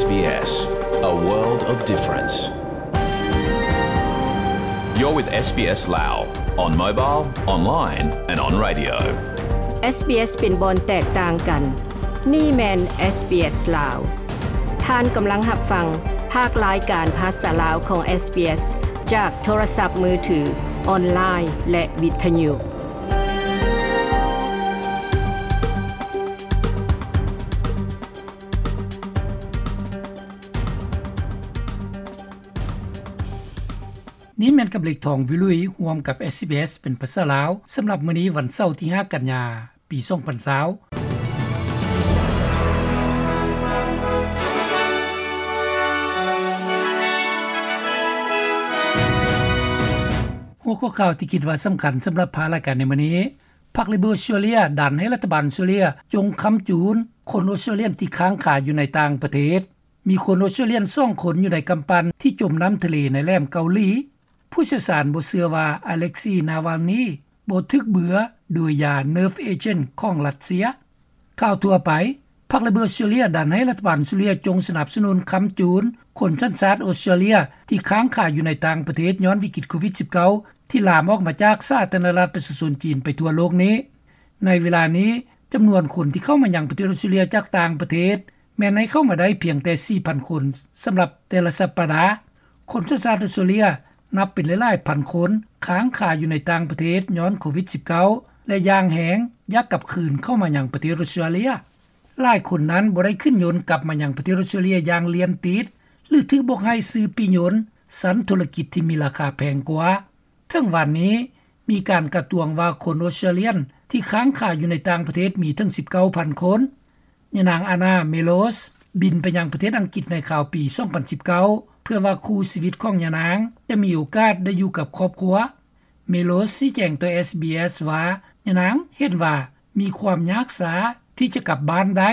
SBS, a world of difference. You're with SBS Lao on mobile, online and on radio. SBS ເປັນບ່ອນແຕກຕ່າງກັນ. ນີ້ແມ່ນ SBS ລາວ. ທ່ານກຳລັງຮັບຟັງພາກລາຍການພາສາລາວຂອງ SBS ຈາກໂທລະສັບມືຖື, ອອນລາຍ ແລະ ວິທະຍຸ. ນີ້ແມ່ນກັບເລັກທອງວິລຸຍ ຮ່ວມກັບ SBS ເປັນພາສາລາວ ສຳລັບມື້ນີ້ວັນເສົາທີຫ້າກັນຍາ ປີສອງພັນຊາວ. ຫົວຂໍ້ຂ່າວທີ່ຄິດວ່າສຳຄັນສຳລັບພາກລາຍການໃນມື້ນີ້, ພັກ Liberal ອອສເຕຣເລຍ ດັນໃຫ້ລັດຖະບານອອສເຕຣເລຍ ຈົ່ງຄ້ຳຈູນຄົນອອສເຕຣເລຍ ທີ່ຄ້າງຄາຢູ່ໃນຕ່າງປະເທດ. ມີຄົນອອສເຕຣເລຍສອງຄົນຢູ່ໃນກຳປັ່ນທີ່ຈົມນ້ຳທະເລໃນແຫຼມເກົາຫຼີ. ຜູ້ຊ່ຽວຊານບໍ່ເຊື່ອວ່າ Alexei Navalny ບໍ່ຖືກເບືອໂດຍຢາ nerve agent ຂອງຣັດເຊຍ. ຂ່າວທົ່ວໄປ, ພັກ Liberal ອອສເຕຣເລຍ ດັນໃຫ້ລັດຖະບານອອສເຕຣເລຍ ຈົ່ງສະໜັບສະໜູນຄ້ຳຈູນຄົນສັນຊາດອອສເຕຣເລຍ ທີ່ຄ້າງຄາຢູ່ໃນຕ່າງປະເທດຍ້ອນວິກິດໂຄວິດສິບເກົ້າ ທີ່ລາມອອກມາຈາກສາທາລະນະລັດປະຊາຊົນຈີນໄປທົ່ວໂລກນີ້. ໃນເວລານີ້, ຈຳນວນຄົນທີ່ເຂົ້າມາຍັງປະເທດອອສເຕຣເລຍຈາກຕ່າງປະເທດ ແມ່ນໃຫ້ເຂົ້າມາໄດ້ພຽງແຕ່ສີ່ພັນຄົນສຳລັບແຕ່ລະສັບປະດາ. ຄົນສັນຊາດອອສເຕຣເລຍນັບເປັນຫຼາຍໆພັນຄົນ ຄ້າງຄາຢູ່ໃນຕ່າງປະເທດຍ້ອນໂຄວິດສິບເກົ້າ ແລະ ຢ່າງແຮງຢາກກັບຄືນເຂົ້າມາຍັງປະເທດອອສເຕຣເລຍ. ຫຼາຍຄົນນັ້ນບໍ່ໄດ້ຂຶ້ນຍົນກັບມາຍັງປະເທດອອສເຕຣເລຍຢ່າງລຽນຕິດ ຫຼື ຖືກບອກໃຫ້ຊື້ປີ້ຍົນຊັ້ນທຸລະກິດທີ່ມີລາຄາແພງກວ່າ. ເຖິງວັນນີ້ ມີການກະຕວງວ່າຄົນອອສເຕຣເລຍນທີ່ຄ້າງຄາຢູ່ໃນຕ່າງປະເທດມີເຖິງສິບເກົ້າພັນຄົນ. ຍານາງ Anna Melos ບິນໄປຍັງປະເທດອັງກິດໃນຄາວປີສອງພັນສິບເກົ້າ ເພື່ອວ່າຄູ່ຊີວິດຂອງຍານາງຈະມີໂອກາດໄດ້ຢູ່ກັບຄອບຄົວ. Melos ຊີ້ແຈງຕໍ່ SBS ວ່າ ຍານາງເຫັນວ່າມີຄວາມຍາກຊ້າທີ່ຈະກັບບ້ານໄດ້,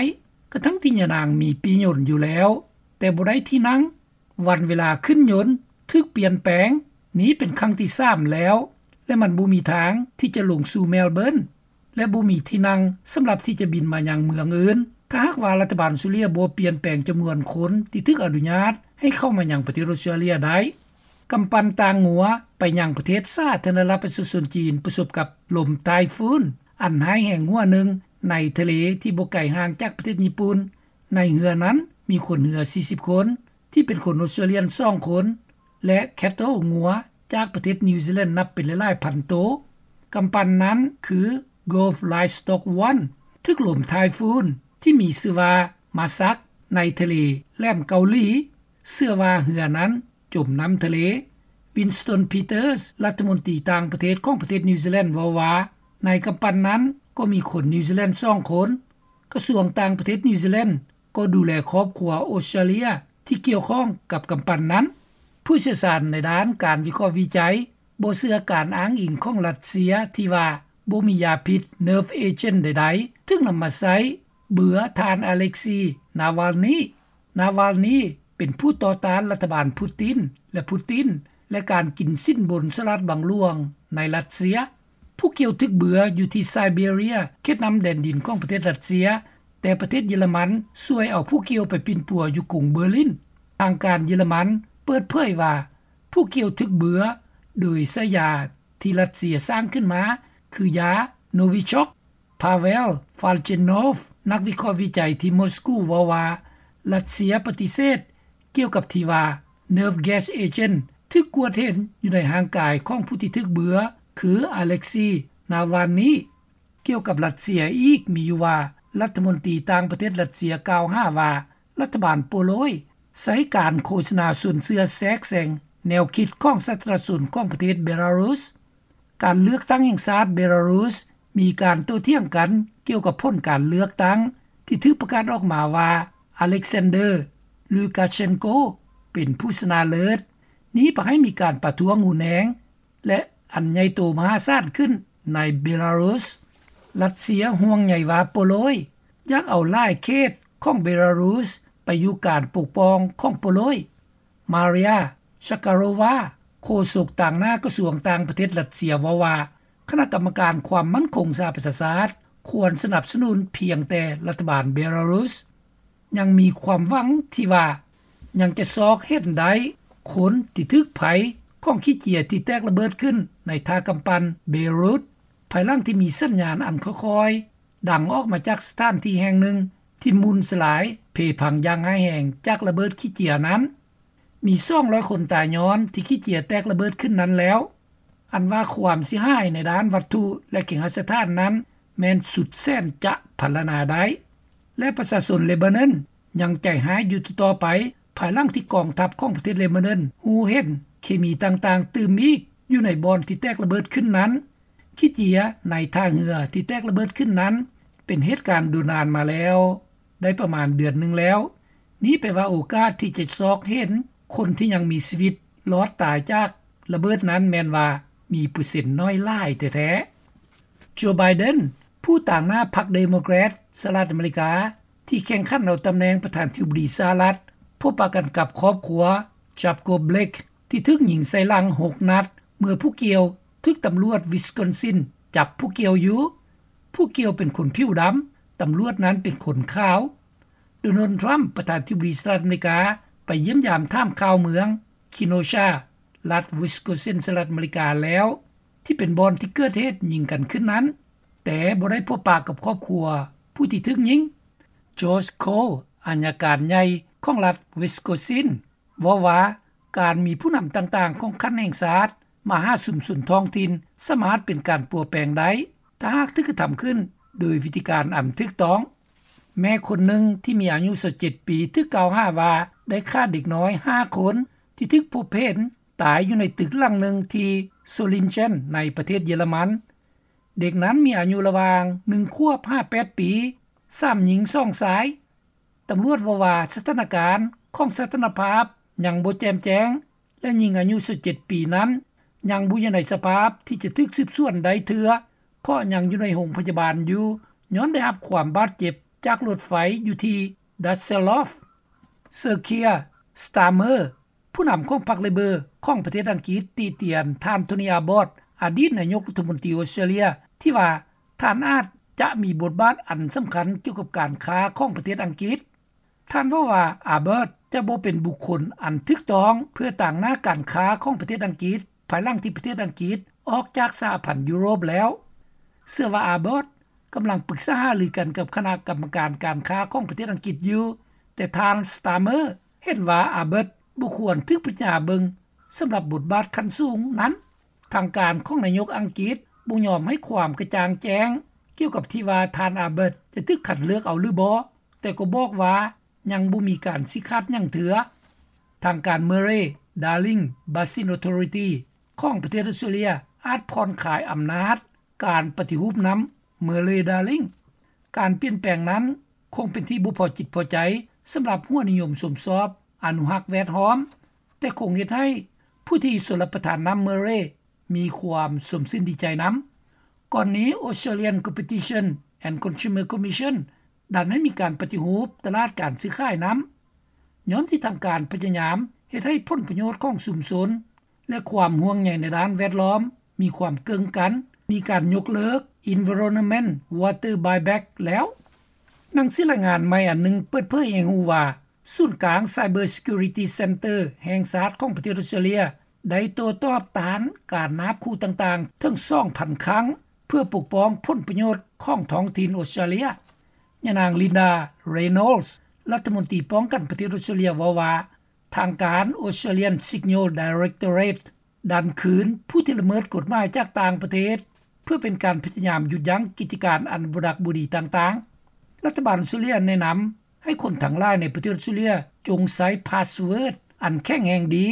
ກະທັ່ງທີ່ຍານາງມີປີ້ຍົນຢູ່ແລ້ວ ແຕ່ບໍ່ໄດ້ທີ່ນັ່ງ. ວັນເວລາຂຶ້ນຍົນຖືກປ່ຽນແປງ, ນີ້ເປັນຄັ້ງທີສາມແລ້ວ ແລະ ມັນບໍ່ມີທາງທີ່ຈະລົງສູ່ແມລເບີນ ແລະ ບໍ່ມີທີ່ນັ່ງສຳລັບທີ່ຈະບິນມາຍັງເມືອງອື່ນ. ຖ້າຫາກວ່າລັດຖະບານອອສເຕຣເລຍບໍ່ປ່ຽນແປງຈຳນວນຄົນທີ່ຖືກອະນຸຍາດໃຫ້ເຂົ້າມາຍັງປະເທດອອສເຕຣເລຍໄດ້. ກຳປັ່ນຕ່າງງົວໄປຍັງປະເທດສາທາລະນະລັດປະຊາຊົນຈີນປະສົບກັບລົມໄຕ້ຝຸ່ນອັນຮ້າຍແຮງຫົວໜຶ່ງໃນທະເລທີ່ບໍ່ໄກຫ່າງຈາກປະເທດຍີ່ປຸ່ນ. ໃນເຮືອນັ້ນມີຄົນເຮືອສີ່ສິບຄົນ ທີ່ເປັນຄົນອອສເຕຣເລຍນສອງຄົນ ແລະ ແຄດເທິລງົວຈາກປະເທດນິວຊີແລນນັບເປັນຫຼາຍໆພັນໂຕ. ກຳປັ່ນນັ້ນຄື Gulf Livestock One ຖືກລົມໄຕ້ຝຸ່ນທີ່ມີຊື່ວ່າ Masak ໃນທະເລແຫຼມເກົາຫຼີ. ເຊື່ອວ່າເຮືອນັ້ນຈົມນ້ຳທະເລ. Winston Peters ລັດຖະມົນຕີຕ່າງປະເທດຂອງປະເທດນິວຊີແລນເວົ້າວ່າ ໃນກຳປັ່ນນັ້ນກໍມີຄົນນິວຊີແລນສອງຄົນ. ກະຊວງຕ່າງປະເທດນິວຊີແລນກໍດູແລຄອບຄົວອອສເຕຣເລຍທີ່ກ່ຽວຂ້ອງກັບກຳປັ່ນນັ້ນ. ຜູ້ຊ່ຽວຊານໃນດ້ານການວິເຄາະວິໄຈບໍ່ເຊື່ອການອ້າງອີງຂອງຣັດເຊຍທີ່ວ່າບໍ່ມີຢາພິດ nerve agent ໃດໆຖືກນຳມາໃຊ້ເບືອທ່ານ Alexei Navalny. Navalny ເປັນຜູ້ຕໍ່ຕ້ານລັດຖະບານປູຕິນ ແລະ ປູຕິນ ແລະ ການກິນສິນບົນສະຫຼາດບັງຫຼວງໃນຣັດເຊຍ. ຜູ້ກ່ຽວຖືກເບືອຢູ່ທີ່ໄຊເບເຣຍ ເຂດນ້ຳແດນດິນຂອງປະເທດຣັດເຊຍ, ແຕ່ປະເທດເຢຍລະມັນຊ່ວຍເອົາຜູ້ກ່ຽວໄປປິ່ນປົວຢູ່ກຸງເບີລິນ. ທາງການເຢຍລະມັນເປີດເຜີຍວ່າ ຜູ້ກ່ຽວຖືກເບືອໂດຍໃຊ້ຢາທີ່ຣັດເຊຍສ້າງຂຶ້ນມາ ຄືຢາ Novichok. Pavel Falchenov ນັກວິເຄາະວິໄຈທີ່ມອສກູເວົ້າວ່າ ຣັດເຊຍປະຕິເສດກ່ຽວກັບທີ່ວ່າ nerve gas agent ຖືກກວດເຫັນຢູ່ໃນຮ່າງກາຍຂອງຜູ້ທີ່ຖືກເບືອ ຄື Alexei Navalny. ກ່ຽວກັບຣັດເຊຍອີກມີຢູ່ວ່າ ລັດຖະມົນຕີຕ່າງປະເທດຣັດເຊຍກ່າວຫາວ່າ ລັດຖະບານໂປໂລຍໃຊ້ການໂຄສະນາຊົນເຊື້ອແຊກແຊງແນວຄິດຂອງສາທາລະນະຊົນຂອງປະເທດເບລາຣຸສ. ການເລືອກຕັ້ງແຫ່ງຊາດເບລາຣຸສມີການໂຕ້ຖຽງກັນກ່ຽວກັບຜົນການເລືອກຕັ້ງທີ່ຖືກປະກາດອອກມາວ່າ Alexander Lukashenko ເປັນຜູ້ຊະນະເລີດ. ນີ້ພາໃຫ້ມີການປະທ້ວງຮຸນແຮງ ແລະ ອັນໃຫຍ່ໂຕມະຫາສານຂຶ້ນໃນເບລາຣຸສ. ຣັດເຊຍຫ່ວງໃຍວ່າໂປໂລຍຢາກເອົາຫຼາຍເຂດຂອງເບລາຣຸສໄປຢູ່ການປົກປ້ອງຂອງໂປໂລຍ. Maria Zakharova ໂຄສົກຕາງໜ້າກະຊວງຕ່າງປະເທດຣັດເຊຍເວົ້າວ່າ ຄະນະກຳມະການຄວາມໝັ້ນຄົງສະຫະປະຊາຊາດຄວນສະໜັບສະໜູນພຽງແຕ່ລັດຖະບານເບລາຣຸສ. ຍັງມີຄວາມຫວັງທີ່ວ່າ ຍັງຈະຊອກເຫັນໄດ້ຄົນທີ່ຖືກໄພຂອງຂີ້ເຈຍທີ່ແຕກລະເບີດຂຶ້ນໃນທ່າກຳປັ່ນເບຣຸດ ພາຍຫຼັງທີ່ມີສັນຍານອັນຄ່ອຍໆດັງອອກມາຈາກສະຖານທີ່ແຫ່ງໜຶ່ງທີ່ໝຸ່ນສະຫຼາຍເພພັງຢ່າງຮ້າຍແຮງຈາກລະເບີດຂີ້ເຈຍນັ້ນ. ມີສອງຮ້ອຍຄົນຕາຍຍ້ອນທີ່ຂີ້ເຈຍແຕກລະເບີດຂຶ້ນນັ້ນແລ້ວ. ອັນວ່າຄວາມເສຍຫາຍໃນດ້ານວັດຖຸ ແລະ ເຄຫະສະຖານນັ້ນແມ່ນສຸດແສນຈະພັນລະນາໄດ້ ແລະ ປະຊາຊົນເລບານອນຍັງໃຈຮ້າຍຢູ່ຕໍ່ໆໄປ ພາຍຫຼັງທີ່ກອງທັບຂອງປະເທດເລບານອນຮູ້ເຫັນເຄມີຕ່າງໆຕື່ມອີກຢູ່ໃນບ່ອນທີ່ແຕກລະເບີດຂຶ້ນນັ້ນ. ຂີ້ເຈຍໃນທ່າເຮືອທີ່ແຕກລະເບີດຂຶ້ນນັ້ນ ເປັນເຫດການດົນນານມາແລ້ວ ໄດ້ປະມານເດືອນໜຶ່ງແລ້ວ. ນີ້ແປວ່າໂອກາດທີ່ຈະຊອກເຫັນຄົນທີ່ຍັງມີຊີວິດລອດຕາຍຈາກລະເບີດນັ້ນແມ່ນວ່າມີເປີເຊັນໜ້ອຍຫຼາຍແທ້ໆ. ໂຈ ໄບເດັນ ຜູ້ຕາງໜ້າພັກເດໂມແຄຣດສະຫະລັດອາເມລິກາ ທີ່ແຂ່ງຂັນເອົາຕຳແໜ່ງປະທານທິບໍດີສະຫະລັດ ພົບປະກັນກັບຄອບຄົວ ຈັບໂກບເບລັກ ທີ່ຖືກຍິງໃສ່ຫຼັງຫົກນັດ ເມື່ອຜູ້ກ່ຽວຖືກຕຳຫຼວດວິສຄອນຊິນຈັບຜູ້ກ່ຽວຢູ່. ຜູ້ກ່ຽວເປັນຄົນຜິວດຳ, ຕຳຫຼວດນັ້ນເປັນຄົນຂາວ. ໂດນັລ ທຣຳ ປະທານທິບໍດີສະຫະລັດອາເມລິກາ ໄປຢ້ຽມຢາມຖາມຂ່າວເມືອງຄີໂນຊາ ລັດວິສຄອນຊິນ ສະຫະລັດອາເມລິກາແລ້ວ ທີ່ເປັນບ່ອນທີ່ເກີດເຫດຍິງກັນຂຶ້ນນັ້ນ, ແຕ່ບໍ່ໄດ້ພົບປະກັບຄອບຄົວຜູ້ທີ່ຖືກຍິງ. ຈອສ ໂຄລ ອັຍການໃຫຍ່ຂອງລັດວິສຄອນຊິນ ເວົ້າວ່າ ການມີຜູ້ນຳຕ່າງໆຂອງຂັ້ນແຫ່ງຊາດມາຫາຊຸມຊົນທ້ອງຖິ່ນ ສາມາດເປັນການປົວແປງໄດ້ ຖ້າຫາກຖືກກະທຳຂຶ້ນໂດຍວິທີການອັນຖືກຕ້ອງ. ແມ່ຄົນໜຶ່ງທີ່ມີອາຍຸຊາວເຈັດປີ ຖືກກ່າວຫາວ່າໄດ້ຂ້າເດັກນ້ອຍຫ້າຄົນ ທີ່ຖືກພົບເຫັນຕາຍຢູ່ໃນຕຶກຫຼັງໜຶ່ງທີ່ໂຊລິນເຈັນ ໃນປະເທດເຢຍລະມັນ. ເດັກນັ້ນມີອາຍຸລະຫວ່າງໜຶ່ງຂວບຫາແປດປີ, ສາມຍິງສອງຊາຍ. ຕຳຫຼວດເວົ້າວ່າສະຖານະການຂອງສະຖານະພາບຍັງບໍ່ແຈ່ມແຈ້ງ ແລະ ຍິງອາຍຸຊາວເຈັດປີນັ້ນຍັງບໍ່ຢູ່ໃນສະພາບທີ່ຈະຖືກສືບສວນໄດ້ເທື່ອ ເພາະຍັງຢູ່ໃນໂຮງພະຍາບານຢູ່ ຍ້ອນໄດ້ຮັບຄວາມບາດເຈັບຈາກລົດໄຟຢູ່ທີ່ດັດເຊລດອຟ. ເຊີເຄຍ ສະຕາເມີ ຜູ້ນຳຂອງພັກເລເບີຂອງປະເທດອັງກິດ ຕິຕຽນທ່ານ ໂທນີ ອາບອດ ອະດີດນາຍົກລັດຖະມົນຕີອົດສະຕຣາເລຍ ທີ່ວ່າທ່ານອາດຈະມີບົດບາດອັນສຳຄັນກ່ຽວກັບການຄ້າຂອງປະເທດອັງກິດ. ທ່ານເວົ້າວ່າ ອາບອດ ຈະບໍ່ເປັນບຸກຄົນອັນຖືກຕ້ອງເພື່ອຕາງໜ້າການຄ້າຂອງປະເທດອັງກິດ ພາຍຫຼັງທີ່ປະເທດອັງກິດອອກຈາກສະຫະພັນຢູໂຣບແລ້ວ. ເຊື່ອວ່າ ອາບອດ ກຳລັງປຶກສາຫາລືກັນກັບຄະນະກຳມະການການຄ້າຂອງປະເທດອັງກິດຢູ່, ແຕ່ທ່ານ ສະຕາເມີ ເຫັນວ່າ ອາບອດ ບໍ່ຄວນຖືກພິຈາລະນາເບິ່ງສຳລັບບົດບາດຂັ້ນສູງນັ້ນ. ທາງການຂອງນາຍົກອັງກິດບໍ່ຍອມໃຫ້ຄວາມກະຈ່າງແຈ້ງກ່ຽວກັບທີ່ວ່າທ່ານ ອາບອດ ຈະຖືກຄັດເລືອກເອົາຫຼືບໍ່, ແຕ່ກໍບອກວ່າຍັງບໍ່ມີການຊີ້ຂາດຫຍັງເທື່ອ. ທາງການ ເມີເຣ ດາລິງ ບາຊິນ ອອໂທຣິຕີ ຂອງປະເທດອົດສະຕຣາເລຍ ອາດຜ່ອນຄາຍອຳນາດການປະຕິຮູບນຳ ເມີເຣ ດາລິງ. ການປ່ຽນແປງນັ້ນຄົງເປັນທີ່ບໍ່ພໍຈິດພໍໃຈສຳລັບຫົວນິຍົມຊົມຊອບອະນຸຮັກແວດລ້ອມ, ແຕ່ຄົງເຮັດໃຫ້ຜູ້ທີ່ຊົນລະປະທານນຳ ເມີເຣ ມີຄວາມຊົມຊື່ນດີໃຈນຳ. ກ່ອນນີ້ Australian Competition and Consumer Commission ດັນໃຫ້ມີການປະຕິຮູບຕະຫຼາດການຊື້ຂາຍນຳ ຍ້ອນທີ່ທາງການພະຍາຍາມເຮັດໃຫ້ຜົນປະໂຫຍດຂອງຊຸມຊົນ ແລະ ຄວາມຫ່ວງໃຍໃນດ້ານແວດລ້ອມມີຄວາມເກີ້ງກັນ, ມີການຍົກເລີກ Environment Water Buyback ແລ້ວ. ໜັງສືລາຍງານໃໝ່ອັນໜຶ່ງເປີດເຜີຍໃຫ້ຮູ້ວ່າ ສູນກາງ Cyber Security Centre ແຫ່ງຊາດຂອງປະເທດອົດສະຕຣາເລຍ ໄດ້ໂຕ້ຕອບຕ້ານການນາບຂູ່ຕ່າງໆເຖິງສອງພັນຄັ້ງ ເພື່ອປົກປ້ອງຜົນປະໂຫຍດຂອງທ້ອງຖິ່ນອົດສະຕຣາເລຍ. ຍານາງ ລິນດາ ເຣໂນລສ໌ ລັດຖະມົນຕີປ້ອງກັນປະເທດອົດສະຕຣາເລຍ ເວົ້າວ່າ ທາງການ Australian Signals Directorate ດັນຄືນຜູ້ທີ່ລະເມີດກົດໝາຍຈາກຕ່າງປະເທດ ເພື່ອເປັນການພະຍາຍາມຢຸດຢັ້ງກິດຈະການອັນບໍ່ດັກບໍ່ດີຕ່າງໆ. ລັດຖະບານອົດສະຕຣາເລຍແນະນຳໃຫ້ຄົນທັງຫຼາຍໃນປະເທດອົດສະຕຣາເລຍ ຈົ່ງໃຊ້ພາສເວີດອັນແຂງແຮງດີ,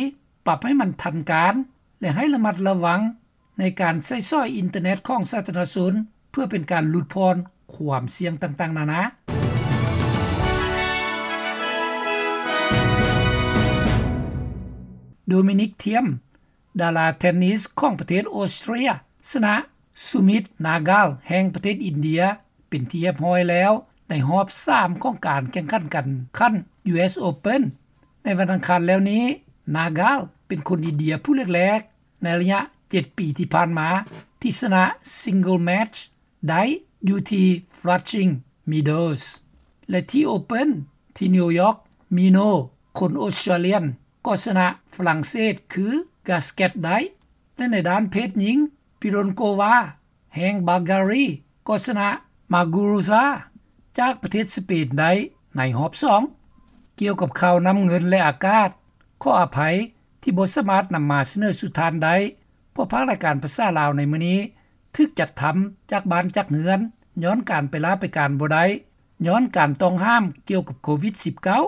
ປັບໃຫ້ມັນທັນການ ແລະ ໃຫ້ລະມັດລະວັງໃນການໃຊ້ສອຍອິນເຕີເນັດຂອງສາທາລະນະຊົນ ເພື່ອເປັນການຫຼຸດຜ່ອນຄວາມສ່ຽງຕ່າງໆນານາ. ໂດມິນິກ ທຽມ ດາລາເທນນິສຂອງປະເທດອົດສະຕຣາເລຍ ຊະນະ ສຸມິດ ນາກາລ ແຫ່ງປະເທດອິນເດຍ ເປັນທີ່ຮຽບຮ້ອຍແລ້ວ ໃນຮອບສາມຂອງການແຂ່ງຂັນການຂັນ ຢູເອສ ໂອເພິນ. ໃນວັນອັງຄານແລ້ວນີ້ ນາກາລ ເປັນຄົນອິນເດຍຜູ້ແລກໆ ໃນໄລຍະເຈັດປີທີ່ຜ່ານມາ ທີ່ຊະນະ Single Match ໄດ້ຢູ່ທີ່ Flushing Meadows ແລະ ທີ່ Open ທີ່ນິວຢອກ ມີໂນ ຄົນອອສເຕຣເລຍ ກໍຊະນະຝຣັ່ງເສດ ຄື ກາສແກັດ ໄດ້ ແລະໃນດ້ານເພດຍິງ ປິໂຣນໂກວາ ແຫ່ງບາກກາຣີ ກໍຊະນະ ມາກູຣຸຊາ ຈາກປະເທດສະເປນໄດ້ໃນຮອບສອງ. ກ່ຽວກັບຂ່າວນ້ຳເງິນ ແລະອາກາດ ຂໍອະໄພທີ່ບໍ່ສາມາດນຳມາສະເໜີສູ່ທ່ານໄດ້ ເພາະພາກລາຍການພາສາລາວໃນມື້ນີ້ ຖືກຈັດທຳຈາກບ້ານຈາກເຮືອນ ຍ້ອນການໄປລາໄປການບໍ່ໄດ້ ຍ້ອນການຕ້ອງຫ້າມກ່ຽວກັບໂຄວິດສິບເກົ້າ.